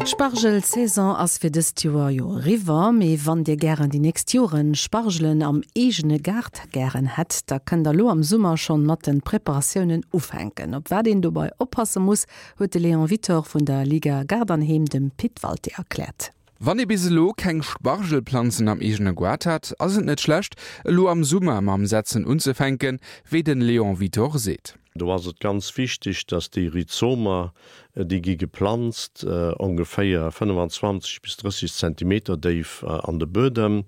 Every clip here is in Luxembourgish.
D'Spargel-Saison ass fir dëst Joer jo eriwwer, mee wann dir gären déi nächst Joren Spargelen am eegene Gaart gären hätt, da kënnt der lo am Summer schonn mat den Preparatiounen ufänken. Op wat een dobei oppasse muss, huet de Léon Wittor vun der Liga Gaart an Heem dem Pit Walté erkläert. Wann ee bis elo keng Spargelplanzen am eegene Goart hat, ass et net schlecht, elo am Summer mam Setzen unzefänken, wéi den Léon Wittor seet. Do ass et ganz wichteg, dass déi Rhizomer, déi gi geplanzt ongeféier 25 bis 30 Zentimeter déif an de Buedem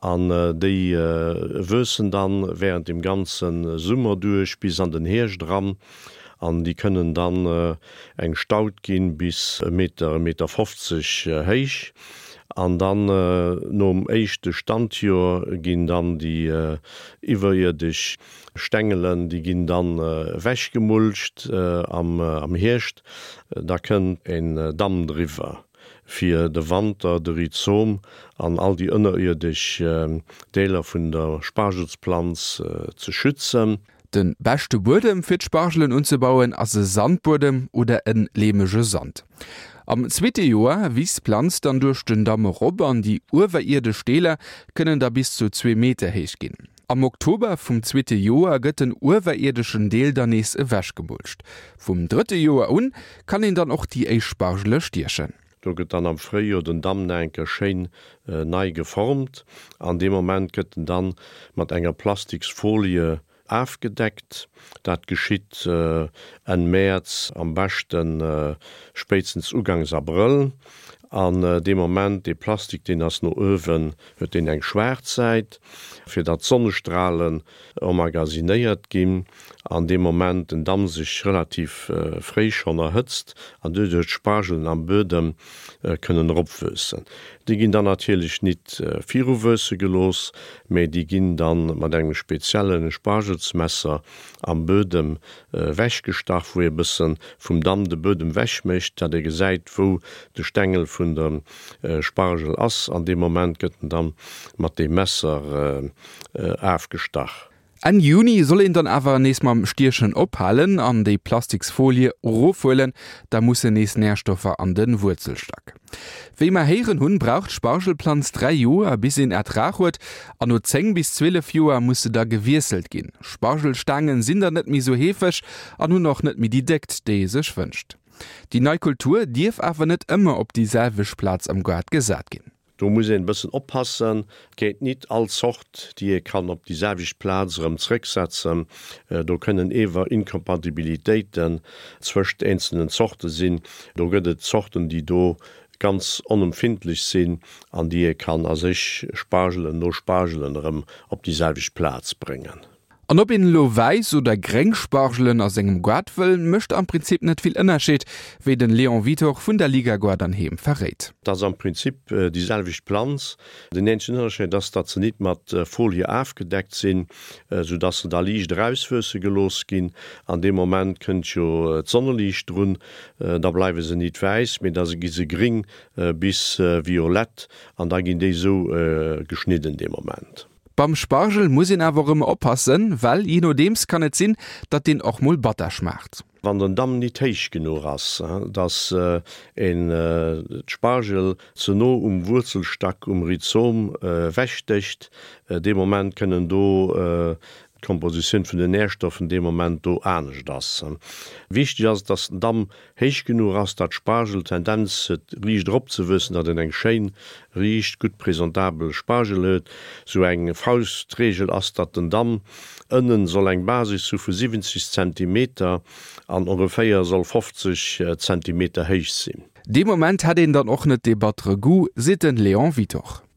an déi wuessen dann während dem ganze Summer duerch bis an den Hierscht eran an déi kënnen dann eng Staud ginn bis e Meter, e Meter 50 héich an dann nom éischte Standjoer ginn dann déi iwwerierdesch Stengelen, déi ginn dann ewechgemulcht am Hierscht. Da kënnt en Damm driwwer fir de Wanter de Rhizom an all déi ënnerierdesch Deeler vun der Spargelsplanz ze schützen. De beschte Buedem fir d'Spargelen unzebauen ass e Sandbuedem oder en leemege Sand. Am zweete Joer wiisst d'Planz dann duerch den Damm erop an déi uewerierdesch Deeler kënnen da bis zu zwee Meter héich ginn. Am Oktober vum zweete Joer gëtt den uewerierdeschen Deel dann nees ewechgemulcht. Vum drëtte Joer un kann een dann och déi éischt Spargele stiechen. Do gëtt dann am Fréijoer den Damm nach eng Kéier schéin nei geformt an dee Moment gëtt en dann mat enger Plastiksfolie afgedeckt. Dat geschitt Enn Mäerz, am beschten spéitstens ugangs Abrëll. An dee Moment, dee Plastik, deen ass no uewen, huet deen eng schwaarz Säit, fir datt d'Sonnestralen emmagasinéiert ginn. An dee Moment den Damm sech relativ fréi schonn erhëtzt an doduerch d'Spargelen am Buedem kënnen eropwuessen. Déi ginn dann natierlech nit viruwuesse gelooss, mee déi ginn dann mat engem spezielle Spargelsmesser am Buedem wechgestach, wou ee bëssen vum Damm de Buedem wech mécht, dat ee gesäit wou de Stengel vun dem Spargel ass. An deem Moment gëtt en dann mat deem Messer afgestach. Enn Juni soll een dann awer nees mam Stiechen ophalen an déi Plastiksfolie erofhuelen, da mussen nees Närstoffer an de Wuerzelstack. Wéi mer héieren hunn, brauch d'Spargelplanz 3 Joer bis een Ertrag huet an no 10 bis 12 Joer muss se da gewiesselt ginn. Spargelstaangen sinn dann net méi sou heefeg an hunn och net méi déi Déckt, déi ee sech wënscht. Déi nei Kultur dierf awer net ëmmer op déi selwecht Plaz am Gaart gesat ginn. Do muss een e bëssen oppassen, et geet nit all Zort, déi ee kann op déi selwecht Plaz erëm zrëcksetzen. Do kënnen ewer Inkompatibilitéiten zwëscht eenzelnen Zorte sinn. Do gëtt et Zorten, déi do ganz onempfindlech sinn an déi ee kann a sech Spargelen no Spargelen erëm op déi selwecht Plaz bréngen. An ob een elo wäiss oder gréng Spargelen a sengem Goart wëll, mécht am Prinzip net vill Ënnerscheed, wéi den Léon Withoch vun der Liga Goart an Heem verréit. Et ass am Prinzip déi selwecht Planz. Den eenzegen Ënnerscheed ass, datt se nit mat Folie afgedeckt sinn, sou datt se da liicht erauswuesse gelooss ginn. An deem Moment kënnt jo d'Sonneliicht drun, da bleiwe se nit wäiss, mee da gi se gréng bis violett an da ginn déi sou geschnidden dee Moment. Beim Spargel muss een awer och ëmmer oppassen, well jee nodeems kann et sinn, datt deen och mol batter schmaacht. Wann den Damm nit héich genuch ass, datt een d'Spargel ze no um Wuerzelstack, um Rhizom, wechstécht, dee Moment kënnen do d'Kompositioun vun den Nährstoffen dee Moment do anescht ass. Wichteg ass et, datt den Damm héich genuch ass, datt d'Spargel d'Tendenz huet riicht eropzewuessen, datt een eng schéin, riicht, gutt presentabel Spargel huet. Sou eng Faustregel ass, datt den Damm ënnen soll eng Basis hu vu 70 Zentimeter an ongeféier soll 50 Zentimeter héich sinn. Dee Moment hätt een dann och net dee battere Goût, seet den Léon Withoch.